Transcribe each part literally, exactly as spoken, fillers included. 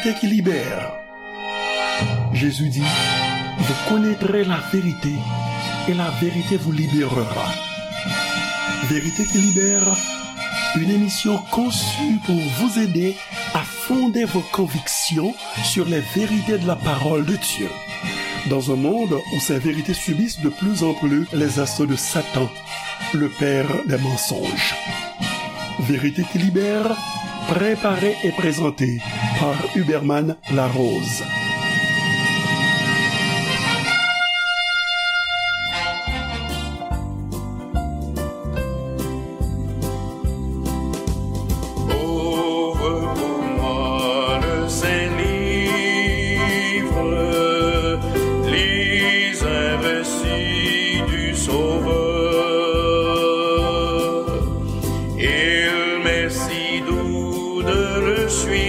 Vérité qui libère. Jésus dit, vous connaîtrez la vérité et la vérité vous libérera. Vérité qui libère, une émission conçue pour vous aider à fonder vos convictions sur les vérités de la parole de Dieu. Dans un monde où ces vérités subissent de plus en plus les assauts de Satan, le père des mensonges. Vérité qui libère, préparée et présentée par Huberman Larose. Ouvre pour moi le Saint-Livre, lis un récit du Sauveur. Il m'est si doux de le suivre,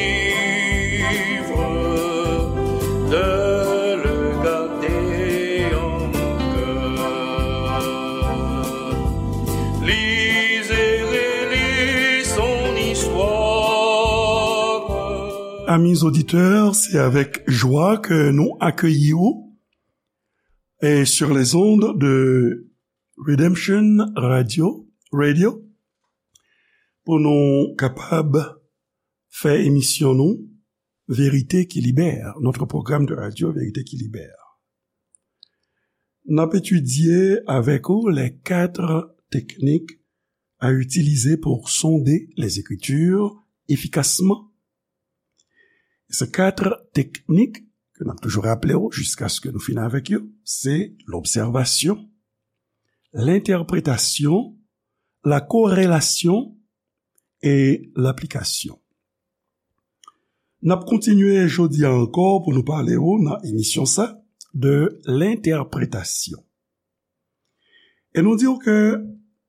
de le garder en mon cœur. Lis et relis son histoire. Amis auditeurs, c'est avec joie que nous accueillons et sur les ondes de Redemption Radio, Radio, pou nou kapab fè emisyon nou, Vérité qui libère, notre programme de radio Vérité qui libère. N ap etidye avèk ou les quatre techniques à utiliser pour sonder les Écritures efficacement. Se kat teknik ke n ap toujou raple w jiskaske nou fini avèk yo, se lobsèvasyon, lentèpretasyon, la korelasyon e laplikasyon. N ap kontinye jodi a ankò pou nou pale w nan emisyon sa de lentèpretasyon. E nou di w ke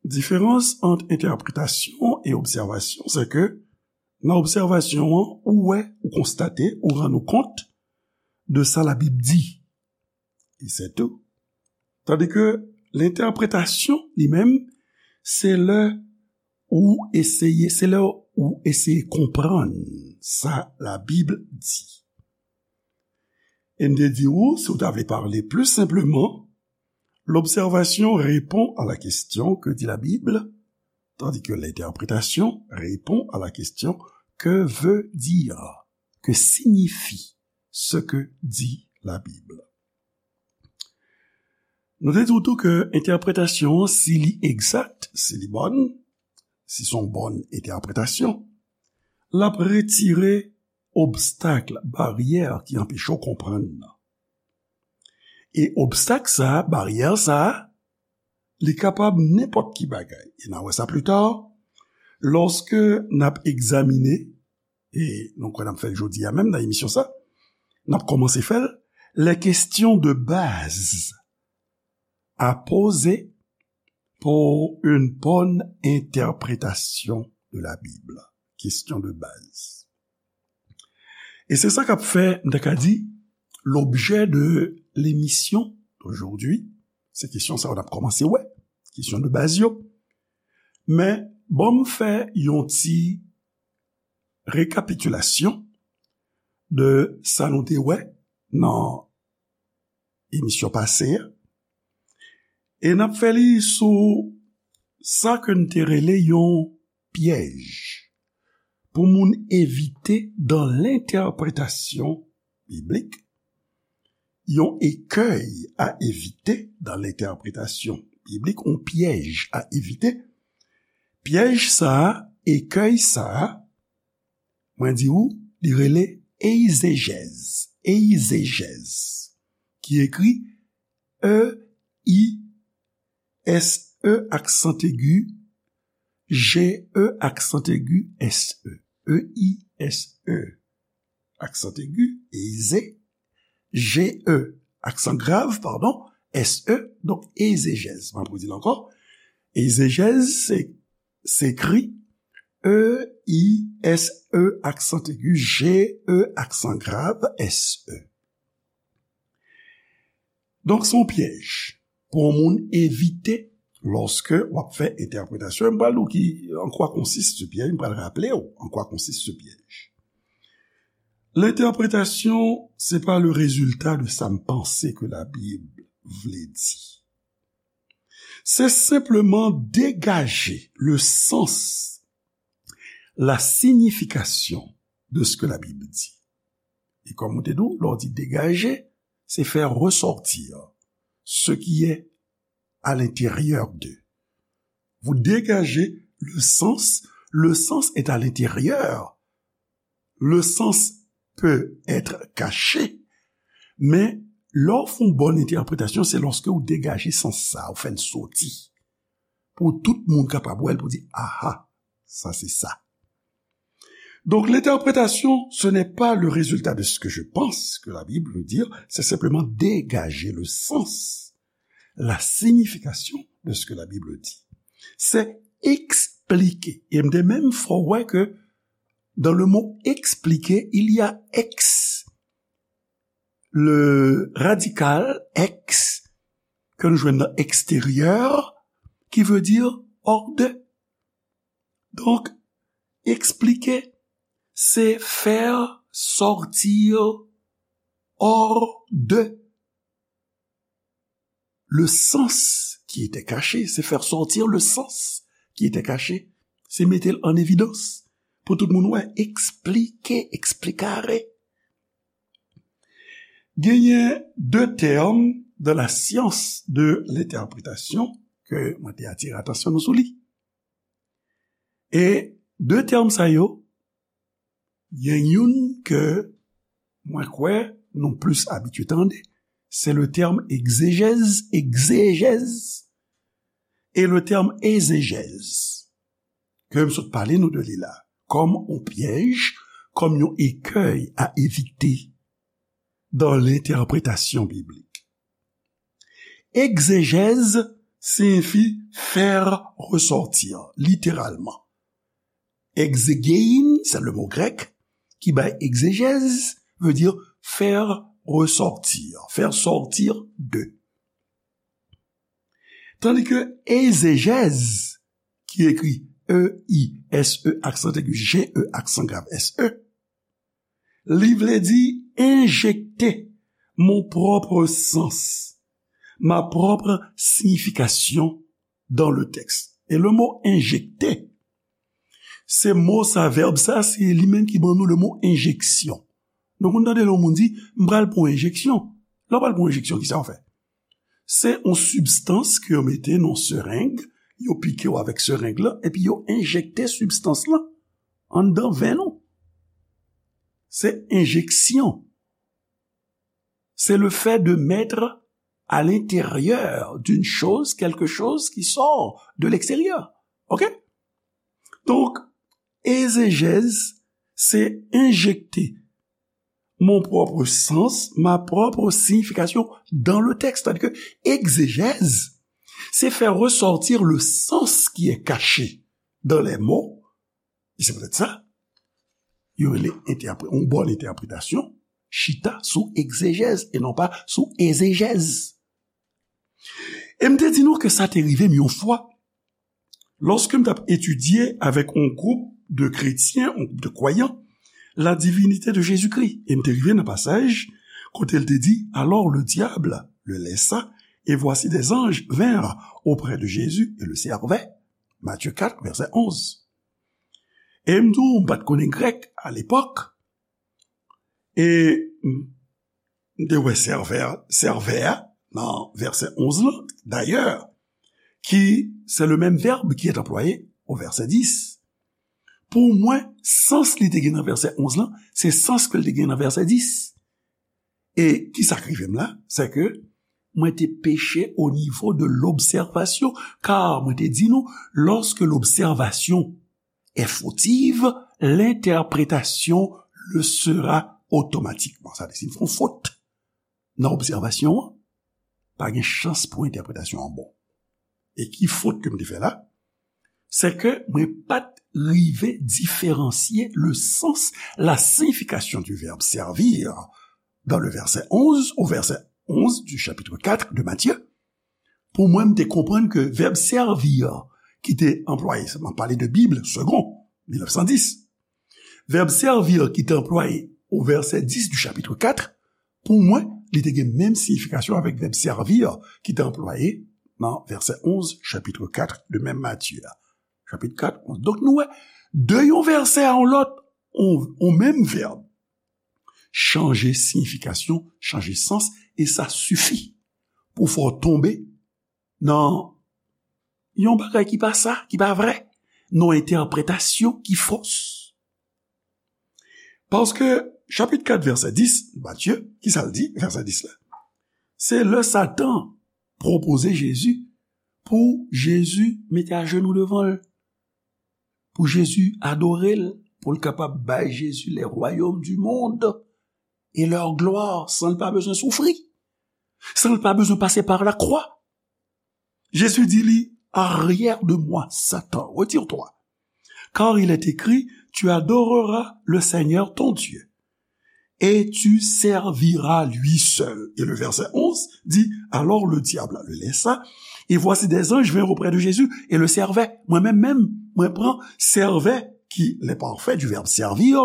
diferans ant entèpretasyon e obsèvasyon, se ke nan obsèvasyon an, ou wè, ou konstate, ou rann ou kont de sa Labib di. E se tou. Tandi ke lentèpretasyon, li menm, se lè ou eseye, se lè ou eseye konprann sa Labib di. E m te di ou, si w ta vle pale pli senpleman, l'observation répond à la question, que dit la Bible, tandis que l'interprétation répond à la question, que veut dire, que signifie ce que dit la Bible. Nou te di w tou ke entèpretasyon an, si li egzak, si li bòn, si se yon bòn entèpretasyon, l ap retire obstak, baryè ki anpeche w konprann nan. E obstak sa a, baryè sa a, li kapab nenpòt ki bagay. E n a wè sa pli ta, lòske n ap egzamine, e nou kwè n ap fè l jodi a menm nan emisyon sa, n ap kòmanse fè l, les questions de base à poser pour une bonne interprétation de la Bible. Question de base. E se sa k ap fè, m ta ka di, l'objet de l'émission d'aujourd'hui. Se kesyon sa yo n ap kòmanse wè, kesyon de baz yo. Men, ban m fè yon ti rekapitilasyon de sa nou te wè nan emisyon pase a. E n ap fè li sou sa ke n te rele yon pyèj pou moun evite dans l'interprétation biblique, yon écueil à éviter dans l'interprétation biblique, yon pyèj a evite. Pyèj sa a, écueil sa a, mwen di ou, li rele eizejèz, eizejèz, ki ekri E I S E aksan egi, J E aksan egi, S E. E I S E aksan egi, eize, J E aksan grav, padon, S E, donk eizejèz. Mwen pou di l ankò, eizejèz, se, se ekri E I S E aksan egi, J E aksan grav, S E. Donk, se yon pyèj pou yon moun evite lòske w ap fè entèpretasyon. M pral di w ki, en quoi consiste ce piège, m pral raple w en quoi consiste ce piège. L'interprétation, c'est pas le résultat de sa m panse ke Labib vle di. Se senpleman degaje le sens, la signification de ce que la Bible dit. E kòm ou te di, lè w di degaje, se faire ressortir ce qui est à l'intérieur de. Vous dégagez le sens, le sens est à l'intérieur. Le sens peut être caché, men lè w fè yon bòn entèpretasyon, se lòske ou degaje sans sa, ou fè l soti. Pou tout moun kapab wè l, pou di, aha, sa se sa. Donc, l'interprétation, ce n'est pas le résultat de ce que je pense que la Bible veut dire, c'est simplement dégager le sens, la signification de ce que la Bible dit. Se eksplike. E m te menm fè w wè ke dans le mot expliquer, il y a ex, le radical ex, ke nou jwenn nan extérieur, qui veut dire hors de. Donc, expliquer, c'est faire sortir hors de le sens qui était caché, c'est faire sortir le sens qui était caché. Se mete l an evidans pou tout moun wè, eksplike, explicare. Genyen de tèm dans la science de l'interprétation ke mwen te atire atansyon nou sou li. E de tèm sa yo, gen youn ke mwen kwè nou plis abitye tande, se le tèm egzejèz, egzejèz, e le tèm ezejèz, ke m sot pale nou de li la, kòm yon pyèj, kòm yon écueil à éviter dans l'interprétation biblique. Egzejèz siyifi faire ressortir, littéralement. Exegein, c'est le mot grec qui bay egzejèz, veut dire faire ressortir, faire sortir de. Tandis que ezejèz, ki ekri E I S E, aksan aigu, G E, aksan grav, S E, li vle di injecter mon propre sens, ma propre signification dans le texte. E le mot injecter, se mo sa, vèb sa, se li menm ki ban nou le mot injection. Nou konn tande lè yon moun di, m pral pran yon enjeksyon. Lè w pral pran yon enjeksyon, kisa w fè? Se yon sibstans ke yo mete nan sereng, yo pike w avèk sereng lan, epi yo enjekte sibstans lan anndan venn ou. Se enjeksyon. C'est le fait de mettre à l'intérieur d'une chose quelque chose qui sort de l'extérieur. OK? Donc, ezejèz, se enjekte mon propre sens, ma propre signification dans le texte. C'est-à-dire que exégèse, c'est faire ressortir le sens qui est caché dans les mots. E se poutèt sa, yo rele entèpre-, yon bòn entèpretasyon chita sou egzejèz e non pa sou ezejèz. E m te di nou ke sa te rive m yon fwa, lòske m t ap etidye avèk yon gwoup de kretyen, yon gwoup de kwayan, la divinité de Jésus-Christ. E m te rive nan pasaj kote l te di, alors le diable le laissa, et voici des anges vinrent auprès de Jésus et le servaient. Matthieu quatre, verset onze. E m di w, m pa t konnen grèk alepòk. E m te wè servè, servè a nan vèsè onz lan, dayè, ki se le menm vèb ki est employé au verset dix. Pou mwen, sans li te gen nan vèsè onz lan, se sans ke l te gen nan vèsè dis. E kisa k rive m la? Se ke mwen te peche au niveau de l'observation, car mwen te di nou, lorsque l'observation est fautive, l'interprétation le sera automatiquement. Sa vle di, si m fè yon fot nan obsèvasyon an, pa gen chans pou entèpretasyon an bon. E ki fot ke m te fè la? Se ke mwen pa t rive diferansye le sens, la signification du verbe servir dans le verset onze au verset onze du chapitre quatre de Matthieu. Pou mwen, m te konprann ke vèb servir ki te anplwaye, m ap pale de Bib, Segond, mil nèf san dis. Vèb servir ki te anplwaye au verset dix du chapitre quatre, pou mwen, li te gen menm siyifikasyon avèk vèb servir ki te anplwaye nan vèsè onz, chapitre quatre de menm Matye a. Chapit kat, onz. Donk, nou wè, de yon vèsè a yon lòt, on, on menm vèb chanje siyifikasyon, chanje sans, e sa sifi pou fè w tonbe nan yon bagay ki pa sa, ki pa vrè, nan yon entèpretasyon ki fos. Paske, chapit kat, vèsè dis, Matye, ki sa l di, vèsè dis la? Se lè Satan pwopoze Jezi pou Jezi mete ajenou devan l, pou Jezi adore l, pou l kapab bay Jezi les royaumes du monde et leur gloire, san l pa bezwen soufri, san l pa bezwen pase par la croix. Jésus dit li, arrière de moi, Satan, retire-toi. Car il est écrit, tu adoreras le Seigneur ton Dieu et tu serviras lui seul. Et le verset onze dit, alors le diable le laissa, et voici des anges vinrent auprès de Jésus et le servaient. Mwen menm menm, mwen pran servaient, ki le parfait du verbe servir,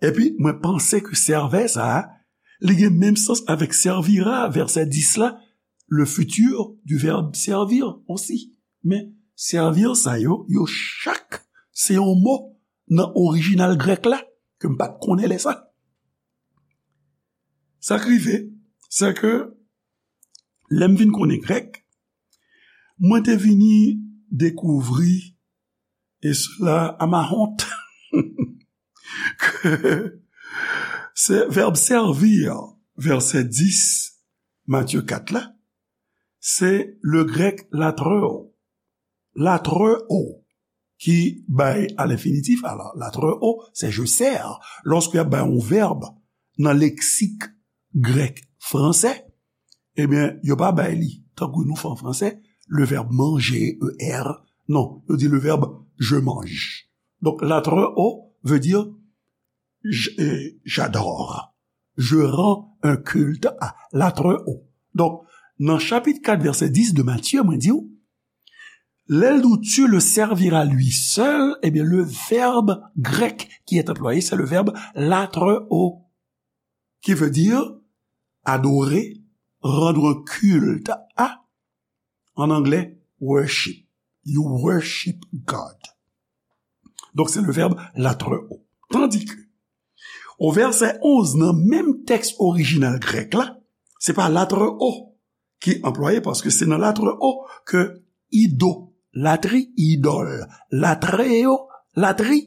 epi mwen panse ke servaient sa a, li gen menm sans avèk servira, vèsè dis la, le futur du verbe servir aussi. Men servir sa yo, yo chak, se yon mo nan orijinal grèk la, ke m pa t konnen lè sa. Sa k rive, se ke lè m vin konnen grèk, mwen te vini dekouvri, et cela à ma honte, ke se vèb servir, vèsè dis, Matye kat la, se le grèk latreo. Latreo, ki bay à l'infinitif. Alors, latreo, c'est je sers. Lòske y ap bay yon vèb nan leksik grèk fransè, ebyen, yo pa bay li, tankou nou fè an fransè, le verbe manger, E R. Non, yo di le verbe je mange. Donk, latreo veut dire j-, euh, j'adore. Je rends un culte à, latreo. Donk, nan chapit kat, vèsè dis de Matye, mwen di w, lè l di w, tu le serviras lui seul, ebyen, le verbe grec qui est employé, c'est le verbe latreo, qui veut dire adorer, rendre un culte à, en anglais, worship. You worship God. Donk, se le verbe latreo. Tandis que, au verset onze, nan menm tèks orijinal grèk la, se pa latreo ki anplwaye, paske se nan latreo ke idolatri, idòl, latreo, latri,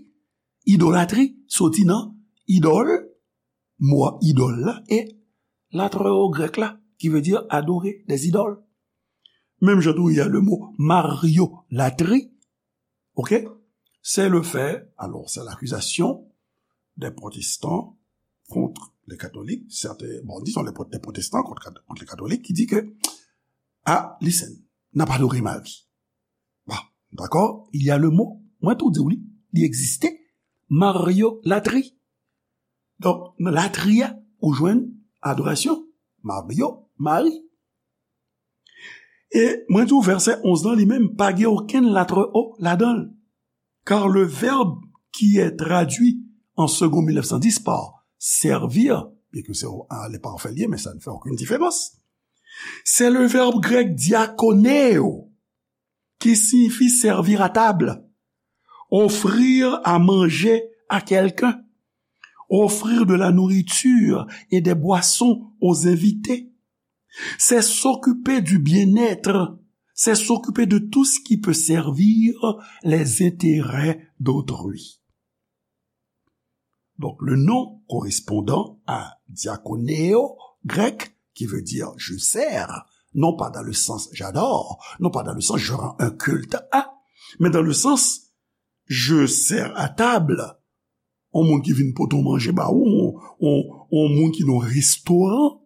idolatri, soti nan idòl, mo a idòl la, e latreo grèk la, qui veut dire adorer des idoles. Menm jan tou, il y a le mot mariolatri, ok? C'est le fait, alors, c'est l'accusation des protestants contre les catholiques, certains, bon, disons les pro-, des protestants contre, contre les catholiques, qui dit que, ah, listen, n ap adore Mari. Bon, dakò, il y a le mot, mwen tou di w li, li egziste, mariolatri. Donk, nan latri a, ou jwenn adorasyon, Mario, Mari. E mwen di w vèsè onz lan li menm, pa gen okenn latreo ladan l. Car le verbe qui est traduit en Segond mil nèf san dis par servir, bien que c'est à l'éparfait lié, mais ça ne fait aucune différence, c'est le verbe grec diakoneo, qui signifie servir à table, offrir à manger à quelqu'un, offrir de la nourriture et des boissons aux invités. C'est s'occuper du bien-être, c'est s'occuper de tout ce qui peut servir les intérêts d'autrui. Donc, le nom correspondant à diakoneo, grec, qui veut dire je sers, non pas dans le sens j'adore, non pas dans le sens je rends un culte à, mais dans le sens je sers à table. On moun ki vin pote w manje ba ou, on, on, on moun ki nan restoran,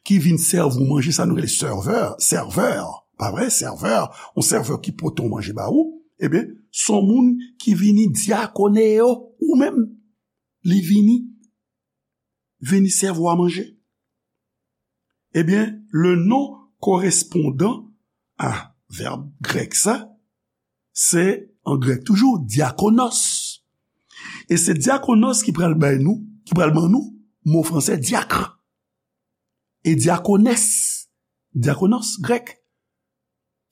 ki vin sèvi w manje, sa nou rele serveur, serveur, pa vre, serveur, yon serveur ki pote w manje ba ou, ebyen, se yon moun ki vini diakoneo ou menm, li vini, vini sèvi w a manje. Ebyen, le nom correspondant à verbe grec sa, se an grèk toujou, diakonos. E se diakonos ki pral bay nou, ki pral ban nou mo franse diacre. Et diaconesse, diakonos, grèk,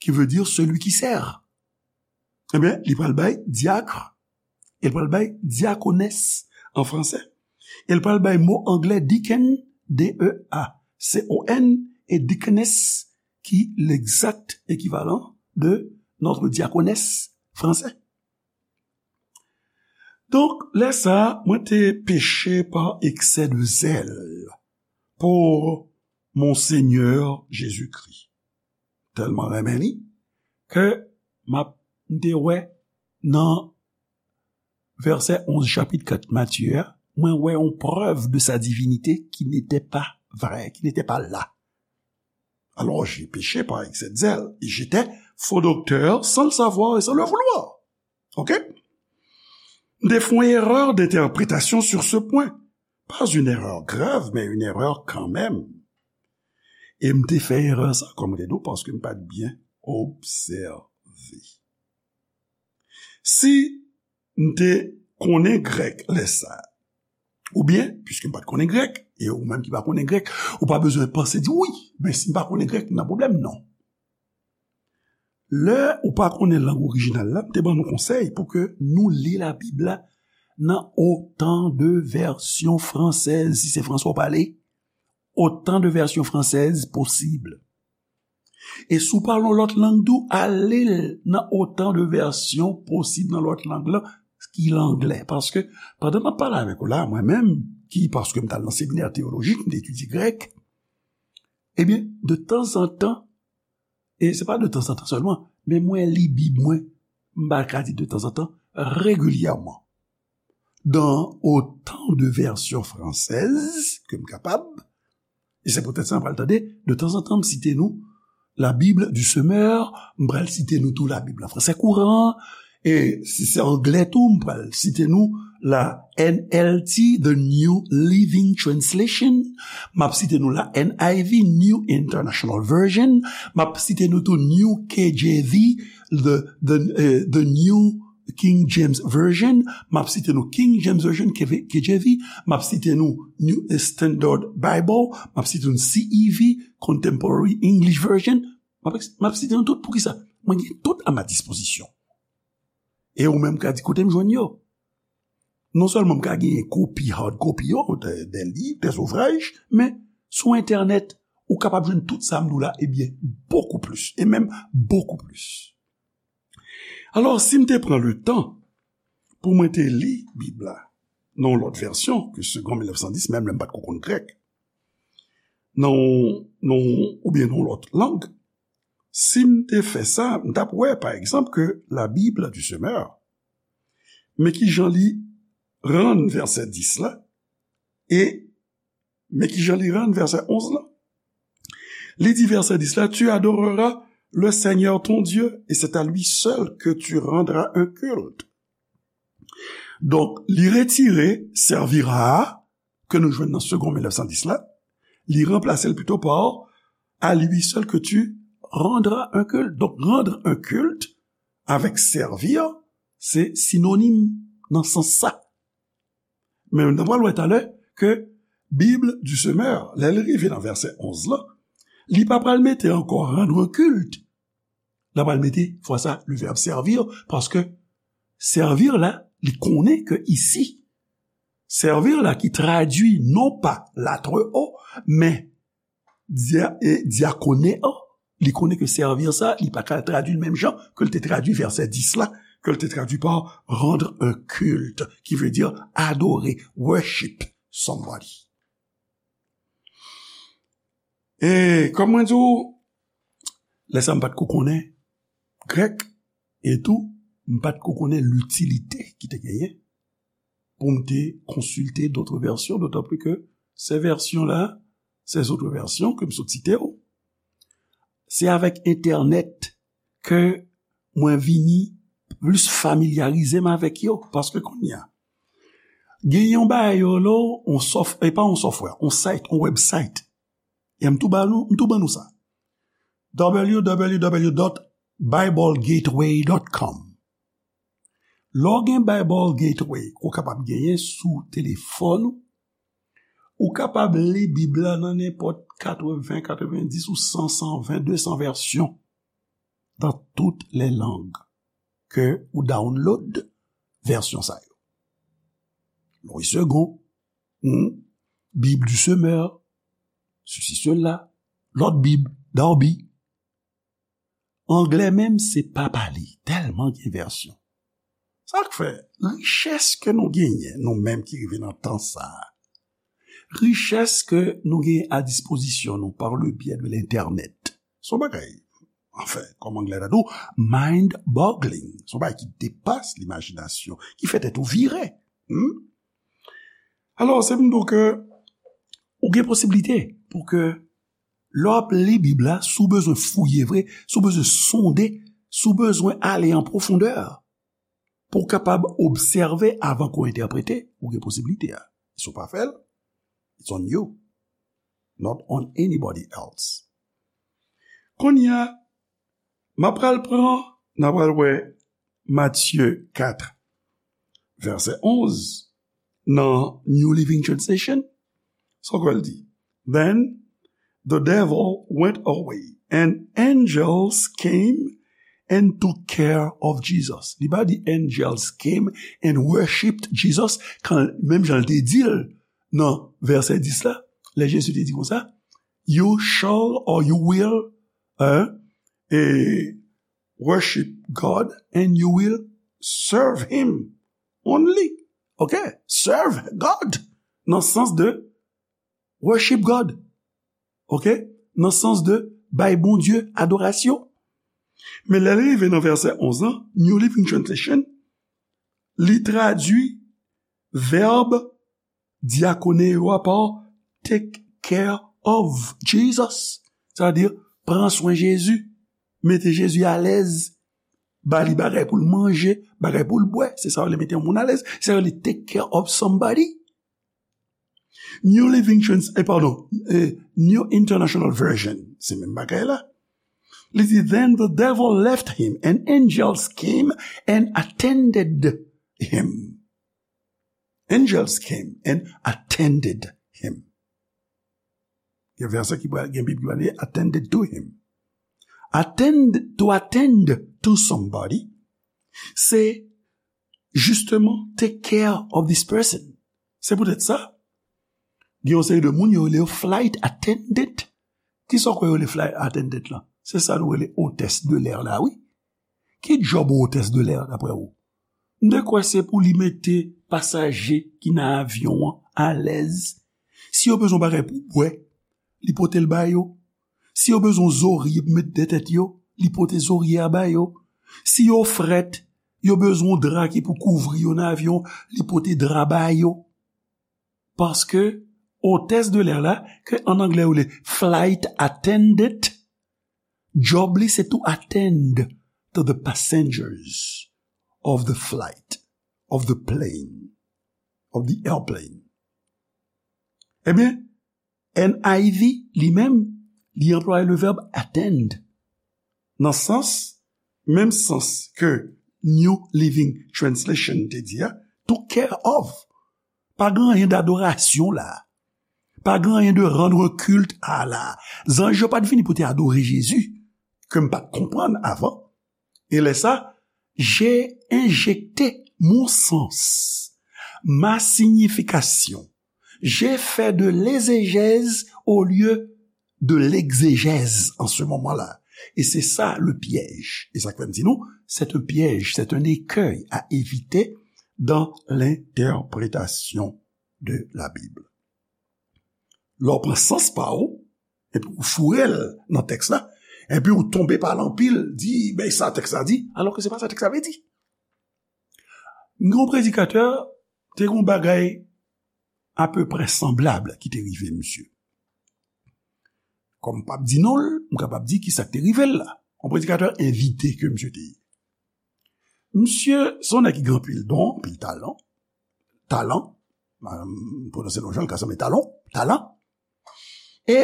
qui veut dire celui qui sert. Ebyen, li pral bay diacre, e l pral bay diaconesse an franse, e l pral bay mo angle deacon, D E A C O N, e deaconess, ki l'exact équivalent de notre diaconesse français. Donk, lè sa a, mwen te peche pa eksè de zèl pou Monseigneur Jésus-Christ. Tèlman renmen li, ke m ap, m te wè nan vèsè onz chapit kat Matye a, mwen wè yon prèv de sa divinite ki n'était pas vrai, qui n'était pas là. Alors, j'ai péché par excès de zèle, et j'étais faux docteur sans le savoir et sans le vouloir. Ok? M te fè yon erè de entèpretasyon sur ce point. Pas une erreur grave, mais une erreur quand même. E m te fè erè sa, kòm m te di w, paske m pa t byen obsève. Si m te konnen grèk lè sa a, oubyen, piske m pa t konnen grèk, e ou menm ki pa konnen grèk, ou pa bezwen panse di, "Wi, men si m pa konnen grèk, m nan pwoblèm." Non. Lè ou pa konnen lang orijinal la, m te ban nou konsèy pou ke nou li Labib la nan autant de versions françaises, si se fransè w pale, autant de versions françaises possible. E si w pale yon lòt lang tou, ale l nan autant de versions possible nan lòt lang la, ki langlè. Paske, pandan m ap pale avèk ou la, mwen menm, ki, paske m t al nan seminè teyolojik, m te etidye grèk, ebyen, de tanzantan, e se pa de tanzantan sèlman, men mwen li Bib mwen, m pa ka di de tanzantan, regilyèman. Dans autant de versions françaises ke m kapab, e se poutèt sa m pral tande, de tanzantan m site nou La Bible du Semeur, m pral site nou tou Labib an fransè kouran, e si se anglè tou, m pral site nou la N L T, The New Living Translation, m ap site nou la N I V, New International Version, m ap site nou tou New K J V, the, the, eh, the New King James Version, m ap site nou King James Version, K V, K J V, m ap site nou New Standard Bible, m ap site nou C E V, Contemporary English Version, m ap, m ap site nou tout. Poukisa? Mwen gen tout a ma dispozisyon. E ou menm ka di, "Kote m jwenn yo?" Non sèlman m ka genyen kopi, hard copy yo, de, de liv, de zouvraj, men sou entènèt, ou kapab jwenn tout sa m di w la, ebyen, bokou plis, e menm bokou plis. Alò, si m te pran le tan pou mwen te li Bib la nan yon lòt vèsyon ke Segond mil nèf san dis, menm lè m pa t ko konn grèk, nan yon, nan yon, oubyen nan yon lòt lang, si m te fè sa, m t ap wè, pa egzanp, ke La Bible du Semeur, men ki jan li rann vèsè dis la, e men ki jan li rann vèsè onz la. Li di vèsè dis la, "Tu adoreras le Seigneur ton Dieu, et c'est à lui seul que tu rendras un culte." Donk, li retire servira a, ke nou jwenn nan Segond mil nèf san dis la, li ranplase l pito pa à lui seul que tu rendras un culte. Donk, rendre un culte avèk servir, se sinonim nan sans sa. Men nou pral wè talè ke Bible du Semeur, lè l rive nan vèsè onz la, li pa pral mete ankò rendre un culte. L pral mete, fwa sa, le verbe servir, paske servir la, li konnen ke isi, servir la ki tradui non pa la très haut, men dia-, e diakoneo, li konnen ke servir sa, li pa ka tradui l menm jan ke l te tradui vèsè dis la, ke l te tradui pa rendre un culte, ki vle di adore, worship somebody. E kòm mwen di w, lè sa m pa t ko konnen grèk, e tou, m pa t ko konnen litilite ki te genyen pou m te konsilte d'autres versions, d'autant plus que ces versions-là, ces autres versions ke m sot site yo, se avèk entènèt ke mwen vini plis familyarize m avèk yo, paske kounye a, gen yon bagay yo lo, on sof-, e pa on software, on site, on website. E m tou ba nou, m tou ban nou sa. W W W dot bible gateway dot com. Lè w gen Bible Gateway, ke w kapab genyen sou telefòn ou, ou kapab li Bib la nan nenpòt katreven, katrevendis ou san, san ven, de san vèsyon dans toutes les langues ke ou download vèsyon sa yo. Louis Segond, hmm, Bible du Semeur, ceci, cela, lòt Bib, Darby. Anglè menm, se pa pale, tèlman gen vèsyon. Sa k fè, richès ke nou genyen, nou menm ki rive nan tan sa a, richès ke nou genyen a dispozisyon nou par le biais de l'Internet, se yon bagay, anfen, kòm Anglè ta di w, mind-boggling. Se yon bagay ki depas limajinasyon, ki fè tèt ou vire. Hmm? Alò, se pou m di w ke ou gen posiblite pou ke lè w ap li Bib la, si w bezwen fouye vre, si w bezwen sonde, si w bezwen ale an pwofondè, pou w kapab obsève avan ke w entèprete, ou gen posiblite a. Si w pa fè l, it's on you, not on anybody else. Kounye a, m ap pral pran, n a pral wè Matye kat, vèsè onz, nan New Living Translation. Sa w kwè l di? Then the devil went away, and angels came and took care of Jesus. Li pa di angels came and worshipped Jesus, kan, menm jan l te di l nan vèsè dis la, lè Jezi te di konsa, "You shall or you will, hein, eh, worship God and you will serve him only." Ok? Serve God. Nan sans de worship God. Ok? Nan sans de bay Bondye adorasyon. Men lè l rive nan vèsè onz lan, New Living Translation, li tradui vèb diakoneo a pa take care of Jesus. Sa vle di, pran swen Jezi, mete Jezi alèz, ba li bagay pou l manje, bagay pou l bwè. Se sa yo rele mete yon moun alèz. Se sa yo rele take care of somebody. New Living Trans-, eh, pardon, eh, New International Version, se menm bagay la. Li di, "Then the devil left him, and angels came and attended him." Angels came and attended him. Gen vèsè ki pral, gen Bib ki pral li attended to him. Attend, to attend to somebody, se justement take care of this person. Se poutèt sa, gen yon seri de moun yo rele yo flight attendant. Kisa w kwè yo rele flight attendant lan? Se sa nou rele hôtesse de l'air la, wi. Ki djòb yon hôtesse de l'air, daprè ou? M te kwè se pou li mete pasaje ki nan avyon an alèz. Si yo bezwen bagay pou bwè, li pote l ba yo. Si yo bezwen zorye pou met dèyè tèt yo, li pote zorye a ba yo. Si yo frèt, yo bezwen dra ki pou kouvri yo nan avyon, li pote dra ba yo. Paske hôtesse de l'air la, ke an anglè yo rele flight attendant, djòb li se to attend to the passengers of the flight, of the plane, of the airplane. Ebyen, N I V li menm, li anplwaye le vèb attend. Nan sans, menm sans ke New Living Translation te di a, took care of. Pa gen anyen dadorasyon la. Pa gen anyen de rendre culte à la. Zanj yo pa t vini pou te adore Jezi, ke m pa t konprann avan. E lè sa, j'ai injecté mon sens, ma signification. J'ai fait de l'exégèse au lieu de l'exégèse en ce moment-là. Et c'est ça le piège. E sa k fè m di nou, c'est un piège, c'est un écueil à éviter dans l'interprétation de la Bible. Lè w pran sans pa w, epi w foure l nan tèks la, epi w tonbe pa l anpil, di, "Ben, sa tèks la di," alò ke se pa sa tèks la vle di. M gen yon predikatè, te gen yon bagay apeprè sanblab ki te rive misye. Kòm m p ap di non l, m kapab di kisa k te rive l la. Yon predikatè envite ke misye te ye. Misye, se yon nèg ki gen anpil don, anpil talan. Talan, m pwononse non jan l ka sanble talon, talan. E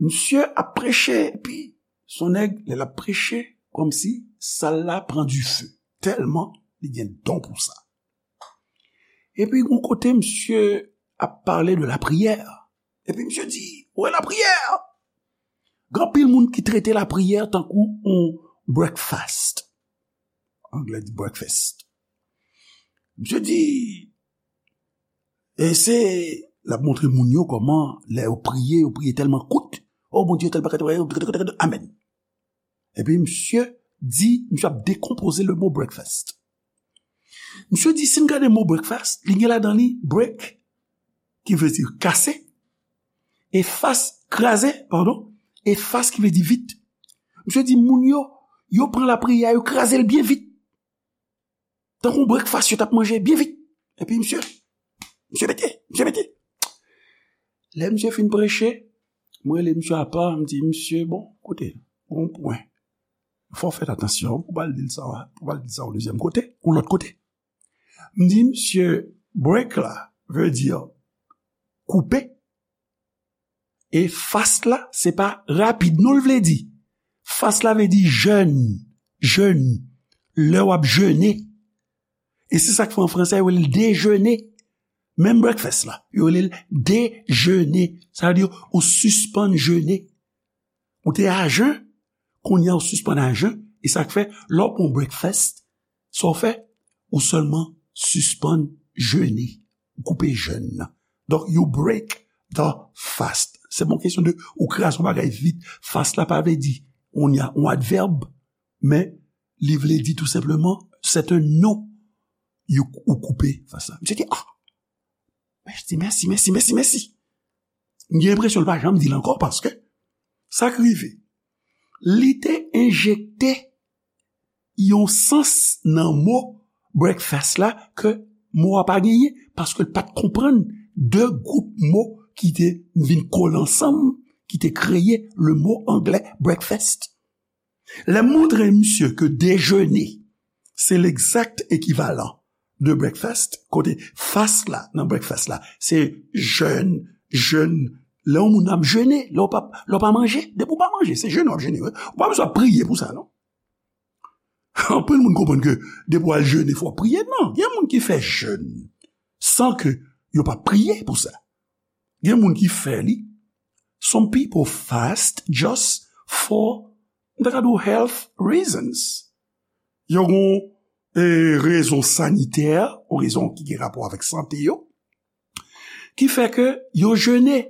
misye ap preche, epi se yon nèg, lè l ap preche, kòmsi sal la pran dife. Tèlman li gen don pou sa. Epi, yon kote, misye ap pale de lapriyè. Epi, misye di, "Ou wè lapriyè?" Gen anpil moun ki trete lapriyè tankou yon breakfast. Anglè di breakfast. Misye di, e se, l ap montre moun yo kòman, lè yo priye, yo priye tèlman kout. Oh, Bondye, tèl bagay, amèn. Epi misye di, misye ap dekonpoze le mo breakfast. Misye di, si n gade mo breakfast, li gen ladan li break, ki vle di kase, e fast, kraze, padon, e fast ki vle di vit. Misye di, moun yo, yo pran lapriyè, yo kraze l byen vit. Tankou breakfast yo t ap manje byen vit. Epi misye, misye mete, misye mete. Lè misye fin preche, mwen rele misye apa, m di, "Misye, bon, koute, gon pwen. Fò w fè atansyon, pou w pa al di l sa, pou w pa al di l sa yon dezyèm kote, yon lòt kote." M di, "Misye, break la vle di koupe." E fast la, se pa rapid, non, l vle di. Fast la vle di jèn, jèn, lè w ap jene. E se sa k fè an fransè, yo rele l dejene. Menm breakfast la, yo rele l dejene. Sa vle di, ou sispann jene. Ou te a jen, kounye a ou sispann a jen. E sa k fè, lè w pran breakfast, sa w fè, ou sèlman sispann jene. Ou koupe jèn nan. Donk, you break the fast. Se pa yon kesyon de ou kraze yon bagay vit. Fast la pa vle di, on y a, yon advèb, men li vle di tou senpleman, c'est un nom. You, ou koupe fast la. Misye di, ah! Mèsi, mèsi, mèsi, mèsi, mèsi. M gen enpresyon l pa janm di l ankò paske sa k rive. Li te enjekte yon sans nan mo breakfast la ke mo a pa genyen, paske l pa t konprann de gwoup mo ki te vin kole ansanm, ki te kreye le mo anglè breakfast. Lè m montre misye ke dejene se legzak ekivalan de breakfast, kote fast la nan breakfast la se jèn, jèn, lè yon moun ap jene, lè w pa, lè w pa manje, depi w pa manje, se jene w ap jene, wi. Ou pa bezwen ap priye pou sa, non. Anpil moun konprann ke depi w al jene, fò w priye. Non, gen moun ki fè jèn san ke yo pa priye pou sa. Gen moun ki fè li. Some people fast just for, m ta ka di w, health reasons. Yo gon, e, rezon sanitè, ou rezon ki gen rapò avèk sante yo, ki fè ke yo jene.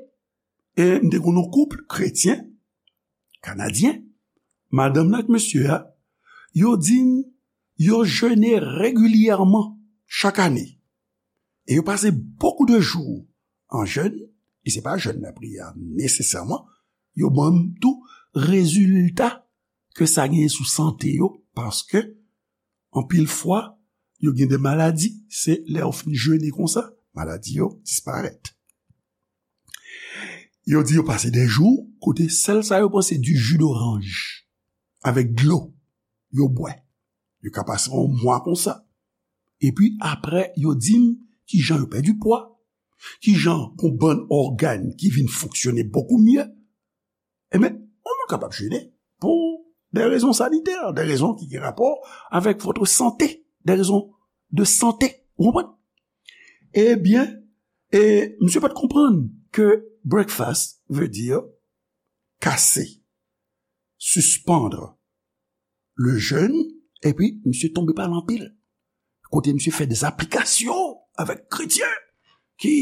E m te konn yon koup kretyen, kanadyen, madanm nan ak mesye a, yo di m, yo jene regilyèman chak ane. E yo pase beaucoup de jours en jeûne, e se pa jèn lapriyè a nesesèman, yo ban m tou rezilta ke sa genyen sou sante yo, paske anpil fwa, yo gen de maladi, se lè yo fin jene konsa, maladi yo disparèt. Yo di yo pase de jou kote sèl sa yo pran se du jus d'orange avèk dlo yo bwè. Yo ka pase yon mwa konsa. Epi apre, yo di m kijan yo pèdi pwa, kijan gon bann ògàn ki vin fonksyone bokou mye. Ebyen, yon moun kapab jene pou de rezon sanitè, de rezon ki gen rapò avèk votre santé, de rezon de sante. Ou konprann? Ebyen, e misye pa t konprann ke breakfast vle di kase, suspendre le jeûne, epi misye tonbe pa l anpil. Kote misye fè de aplikasyon avèk kretyen ki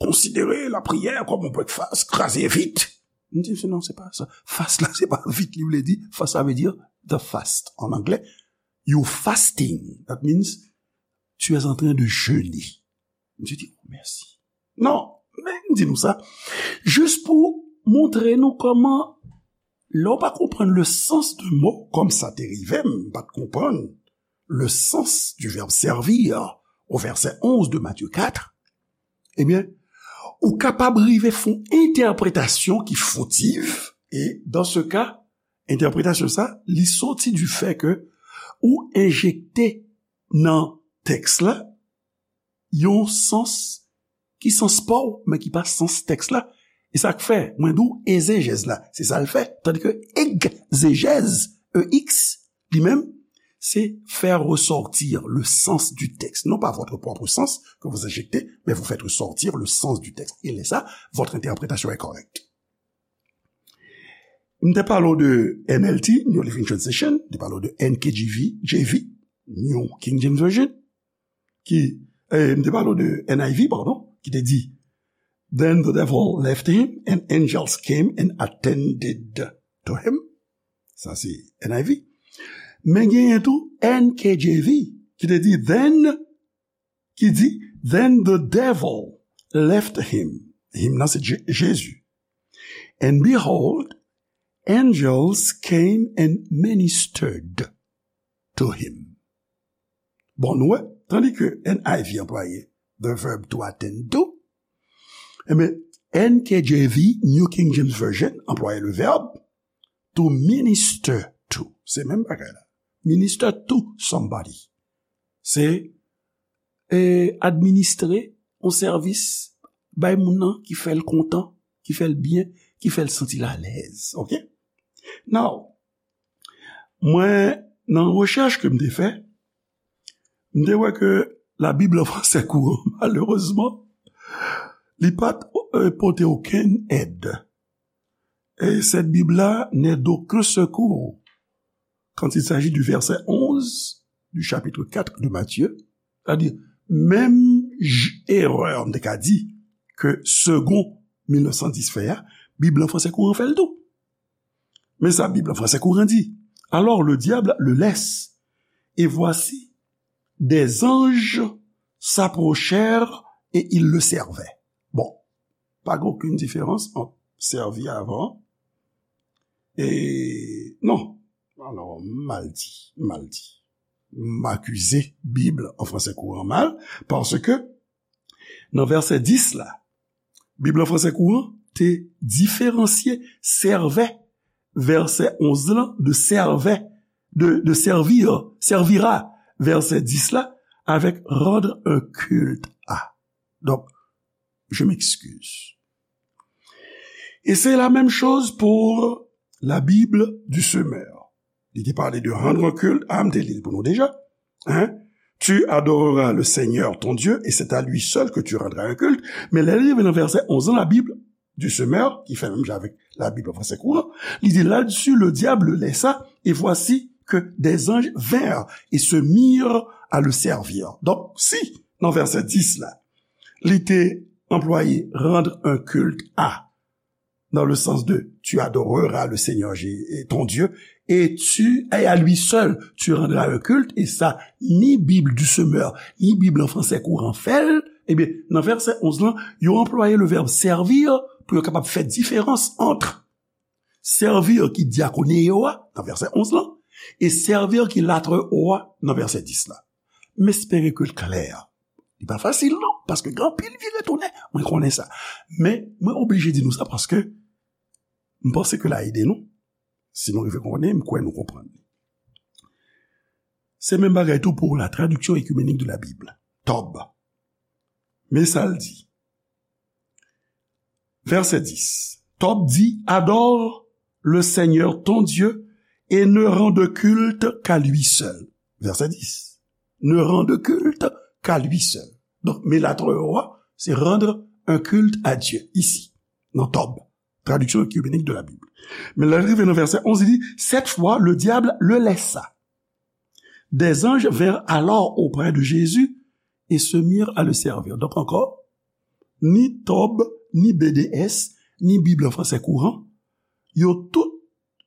konsidere lapriyè kòm yon breakfast, kraze vit. M di misye, non, se pa sa. Fast la, se pa vit li vle di. Fast la vle di the fast en anglais. You fasting. That means tu es en train de jeûner. Misye di, oh, mèsi. Non, men m di nou sa, jis pou montre nou kòman, lè w pa konprann le sens de mo, kòm sa te rive m, m pa t konprann le sens du verbe servir au verset onze de Matthieu quatre, ebyen, ou kapab rive fè yon entèpretasyon ki fotiv, e dans ce cas, entèpretasyon sa, li soti du fait que ou enjekte nan tèks la, yon sans ki sans pa w, men ki pa sans tèks la. E sa k fè, mwen di w, ezejèz la, se sa l fè. Tandike egzejèz, E X, li menm, c'est faire ressortir le sens du texte. Non pas votre propre sens que vous injectez, mais vous faites ressortir le sens du texte. Et là, ça, votre interprétation est correcte. M te pale w de N L T, New Living Translation, m te pale w de N K J V, J V, New King James Version, ki, eh, m te pale w de N I V, pardon, ki te di, "Then the devil left him, and angels came and attended to him." Sa se N I V. Men genyen tou N K J V, ki te di, then, ki di, "Then the devil left him." Him nan se Je- Jezi. "And behold, angels came and ministered to him." Bon, nou wè, tandi ke N I V anplwaye the verb to attend to, ebyen, N K J V, New King James Version, anplwaye le verbe to minister to. Se menm bagay la. Minister to somebody. Se, eh, administre yon sèvis bay moun nan ki fè l kontan, ki fè l byen, ki fè l santi l alèz. Oke? Now, mwen, nan rechèch ke m te fè, m te wè ke Labib an fransè kouran, malerezman, li pa t, eh, pote okenn èd. Et cette Bible-là n'est d'aucun secours quand il s'agit du verset onze du chapitre quatre de Matthieu. C'est-à-dire, menm j- erè, m te ka di, ke Segond mil nèf san dis fè a, Bib an fransè kouran fè l tou. Men sa Bib an fransè kouran di, "Alors le diable le laisse, et voici, des anges s'approchèrent et ils le servaient." Bon, pa gen okenn diferans ant sèvi avan e non. Alò, m mal di, m mal di. M akize Bib an fransè kouran mal, paske nan vèsè dis la, Bib an fransè kouran te diferansye servait, vèsè onz lan, de servait, de, de servir, servira, vèsè dis la, avec rendre un culte à. Donc, je m'excuse. Et c'est la même chose pour la Bible du semeur. Li te pale de rendre un culte à, m te li l pou nou deja. Hein? Tu adoreras le Seigneur ton Dieu, et c'est à lui seul que tu rendras un culte. Men lè li rive nan vèsè onz lan, la Bible du semeur, ki fè menm jan avèk la Bible an fransè kouran, li di, "Là-dessus, le diable le laissa, et voici que des anges vinrent et se mirent à le servir." Donk, si, nan vèsè dis la, li te anplwaye rendre un culte à, dans le sens de tu adoreras le Seigneur Jé- ton Dieu, et tu, et à lui seul, tu rendras un culte, et sa, ni Bib du semeur, ni Bib an fransè kouran fè l, ebyen, nan vèsè onz lan, yo anplwaye le verbe servir pou yo kapab fè diferans ant servir ki diakoneo a, nan vèsè onz lan, e servir ki latreo a, nan vèsè dis la. M espere ke l klè. Li pa fasil non, paske gen anpil vire tounen, mwen konnen sa. Men, mwen oblije di nou sa paske m panse ke l a ede nou. Si nou rive konnen, m kwè nou konprann li. Se menm bagay tou pou la Traduction Œcuménique de la Bible, Tob. Men sa l di. Vèsè dis. Tob di, "Adore le Seigneur ton Dieu et ne rends de culte qu'à lui seul." Vèsè dis. "Ne rends de culte qu'à lui seul." Donk, men latreo a, se rendre un culte à Dieu, isi, nan Tob, Traduction Œcuménique de la Bible. Men lè l rive nan vèsè onz, li di, "Cette fois, le diable le laissa. Des anges vinrent alors auprès de Jésus et se mirent à le servir." Donk ankò, ni Tob, ni B D S, ni Bib an fransè kouran, yo tout,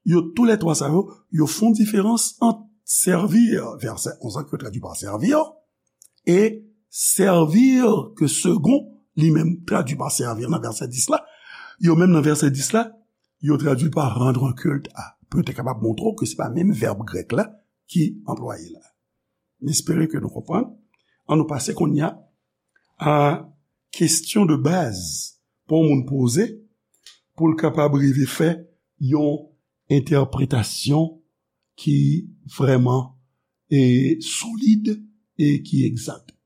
yo toulètwa sa yo, yo fè yon diferans ant servir, vèsè onz lan ki yo tradui pa servir, e servir ke Segond li menm tradui pa servir nan vèsè dis la. Yo menm nan vèsè dis la, yo tradui pa rendre un culte à. Pou yo te kapab montre w ke se pa menm vèb grèk la ki anplwaye la. M espere ke nou konprann. Ann nou pase kounye a a kesyon de baz pou yon moun poze pou l kapab rive fè yon entèpretasyon ki vrèman e solid e ki egzak.